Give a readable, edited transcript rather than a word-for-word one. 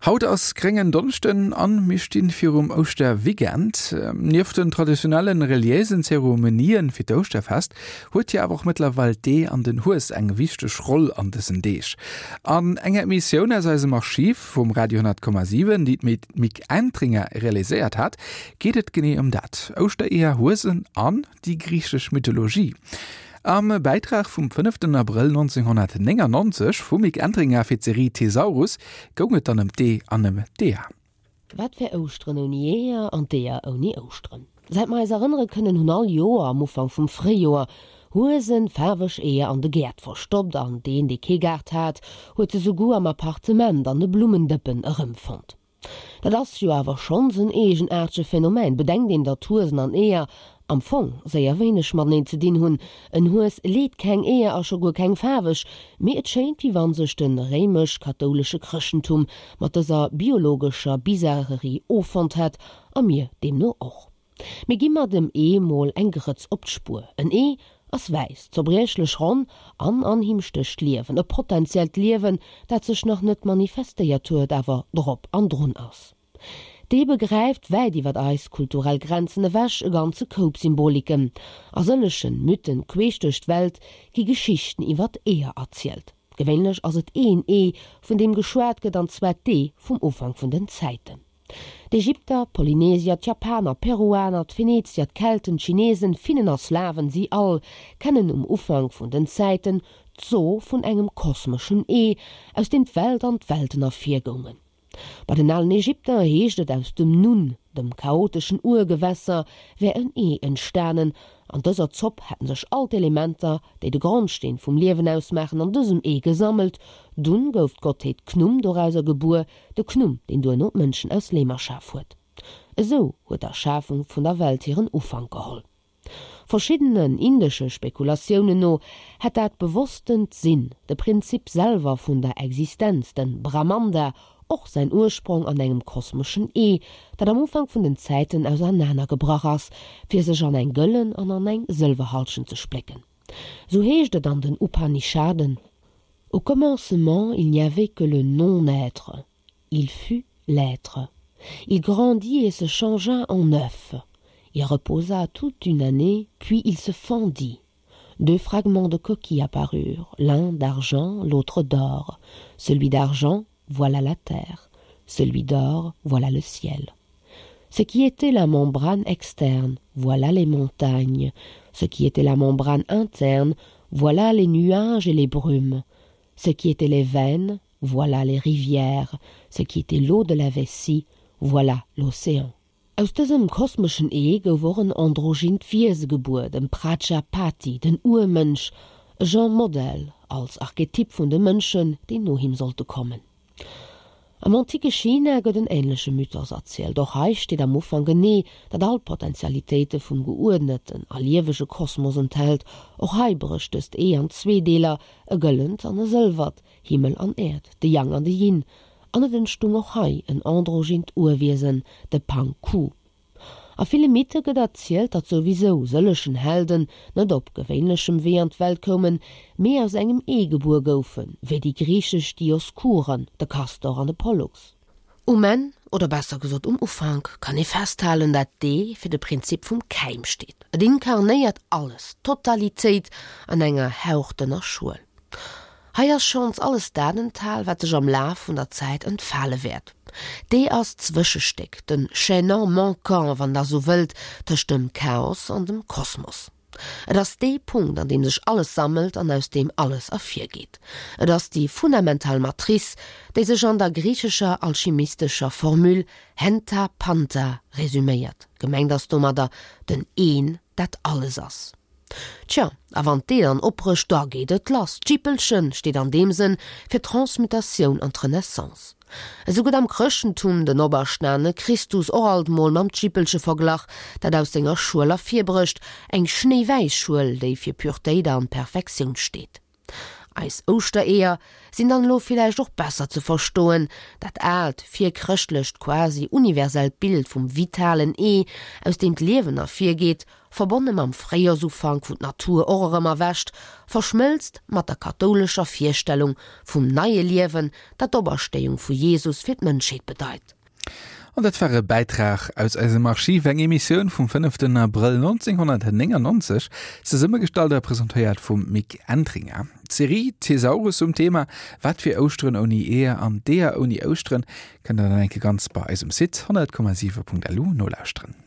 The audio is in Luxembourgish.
Haut ass gréngen Donneschden an mir stinn virum Ouschterweekend. Nieft den traditionellen reliéisen Zeremonien fir d'Ouschterfest huet jo awer och mëttlerweil d'Ee an den Hues eng wichteg Roll an dësen Deeg. An enger Emissioun aus eisem Archiv vum Radio 10,7, déi d'Mick Entringer realiséiert hat, geet et genee ëm dat, Ouschtereeër, Huesen an déi griichesch Mythologie. Am Bäitrag vum fënneften Abrëll 1999 vum Mick Entringer fir d'Serie Thesaurus goung et dann ëm d'Ee an ëm d'Eeër. Wat wär Ouschteren ouni Eeër an d'Eeër ouni Ouschteren? Säit mer eis erënnere kënnen, hunn all Joer am Ufank vum Fréijoer Huesen faarweg Eeër an de Gäert verstoppt an deen, dee kee Gaart hat, huet se souguer am Appartement an de Blummendëppen erëmfonnt. Dat ass jo awer schonns en eegenaartege Phänomen, bedenkt een, datt Huesen an Eeër am Fong séier wéineg mateneen ze dinn hunn. En Hues leet keng Eeër a scho guer keng faarweg, mee et schéint wéi wann sech de réimesch-kathoulesche Chrëschtentum mat dëser biologescher Bizarrerie offonnt hätt, a mir deemno och. Mee gi mer dem Ee mol eng Grëtz op d'Spuer. En Ee ass wäiss, zerbriechlech ronn an an him stécht Liewen, e potentiellt Liewen, dat sech nach net manifestéiert huet, awer drop an drun ass. D'Ee begräift wäit iwwer eis kulturell Grenzen ewech e ganze Koup Symboliken. A sëllegen Mythen queesch duerch d'Welt gi Geschichten iwwer Eeër erzielt. Gewéinlech ass et een Ee, vun deem geschwat gëtt, an zwar d'Ee vum Ufank vun den Zäiten. D'Ägypter, d'Polynesier, d'Japaner, d'Peruaner, d'Venezier, d'Kelten, d'Chinesen, Finnen a Slawen, si all kennen um Ufank vun den Zäiten d'So vun engem kosmeschen Ee, aus deem d'Welt an d'Welten ervirgoungen. Bei den alen Ägypter heescht et, aus dem Nun, dem chaoteschen Urgewässer, wär en Ee entstanen. An dëser Zopp hätten sech all d'Elementer, déi de Grondsteen vum Liewen ausmaachen, an dësem Ee gesammelt. Dunn gouf d'Gottheet Khnum dorauser gebuer, De Khnum, deen duerno d'Mënschen aus Leem erschaf huet. Esou huet d'Erschafung vun der Welt hiren Ufank geholl. Verschiddenen indesche Spekulatiounen no hätt dat bewosstent Sinn, de Prinzip selwer vun der Existenz, den Brahmanda, och säin Ursprong an engem kosmeschen Ee, dat am Ufank vun den Zäiten ausernanergebrach ass, fir sech an eng gëllen an an eng sëlwer Halschent ze splécken. Sou heescht et an den Upanishaden, Au commencement, il n'y avait que le non-être. Il fut l'être. Il grandit et se changea en œuf. Il reposa toute une année, puis il se fendit. Deux fragments de coquille apparurent, l'un d'argent, l'autre d'or. Celui d'argent, voilà la terre, celui d'or, voilà le ciel. Ce qui était la membrane externe, voilà les montagnes, ce qui était la membrane interne, voilà les nuages et les brumes, ce qui était les veines, voilà les rivières, ce qui était l'eau de la vessie, voilà l'océan. Aus dësem kosmeschen Ee gouf och en androgynt Wiese gebuer, dem Prajapati, den Urmënsch, e Genre Modell als Archetyp vun de Mënschen, déi no him sollte kommen. Am antike China gëtt en änleche Mythos erzielt. Och hei steet am Ufank en Ee, dat all d'Potentialitéite vum geuerdneten a liewege Kosmos enthält. Och hei brécht dëst Ee an zwee Deeler, e gëllent an e sëlwert, Himmel an Äerd, de Yang an de Yin. An et entstung och hei en androgynt Urwiesen, de Pang Ku. A ville Mythe gëtt erzielt, datt souwisou sëllechen Helden net op gewéinlechem Wee an d'Welt koumen, mee aus engem Ee gebuer goufen, wéi déi griichesch Dioskuren, de Kastor an de Pollux. Um Enn, oder besser gesot um Ufank, kann ee festhalen, dat d'Ee fir de Prinzip vum Käim steet. Et inkarnéiert alles, d'Totalitéit an enger hauchdënner Schuel. Hei ass schonns alles dat enthal, wat sech am Laf vun der Zäit entfale wäert. D'Ee ass d'Zwëschestéck, de Chaînon manquant, wann Der esou wëllt, tëscht dem Chaos an dem Kosmos. Et ass dee Punkt, an deem sech alles sammelt an aus deem alles ervirgeet. Et ass déi fundamental Matrice, déi sech an der griichescher alchimistescher Formule Henta Panta resüméiert. Gemengt ass domadder den Een, dat alles ass. Tja, a wann d'Ee dann opbrécht, da geet et lass. D'Jippelchen steet an deem Sënn fir d'Transmutatioun an d'Renaissance. Esou gëtt am Chrëschtentum den operstane Christus och alt mol mam Jippelche verglach, dat aus senger Schuel ervirbrécht, eng schnéiwäiss Schuel, déi fir Puretéit an Perfektioun steet. Eis Ouschtereeër sinn dann elo villäicht och besser ze verstoen, dat aalt, virchrëschtlecht, quasi universellt Bild vum vitalen Ee, aus deem d'Liewen ervirgeet, verbonne mam Fréijoersufank, wou d'Natur och erëm erwächt, verschmëlzt mat der kathoulescher Virstellung vum neie Liewen, dat d'Operstéiung vu Jesus fir d'Mënschheet bedeit. An dat war e Bäitrag aus eisem Archiv, eng Emissioun vum fënneften Abrëll 1999, zesummegestallt a presentéiert vum Mick Entringer. D'Serie Thesaurus um Thema Wat wier Ouschteren ouni Eeër an d'Eeër ouni Ouschteren kënnt der dann enke ganz bei eisem Site 100,7.lu nolauschteren.